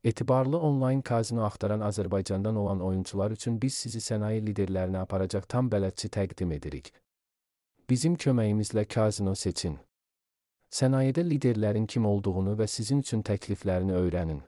Etibarlı onlayn kazino axtaran Azərbaycandan olan oyuncular üçün biz sizi sənaye liderlərinə aparacaq tam bələdçi təqdim edirik. Bizim köməyimizlə kazino seçin. Sənayedə liderlərin kim olduğunu və sizin üçün təkliflərini öyrənin.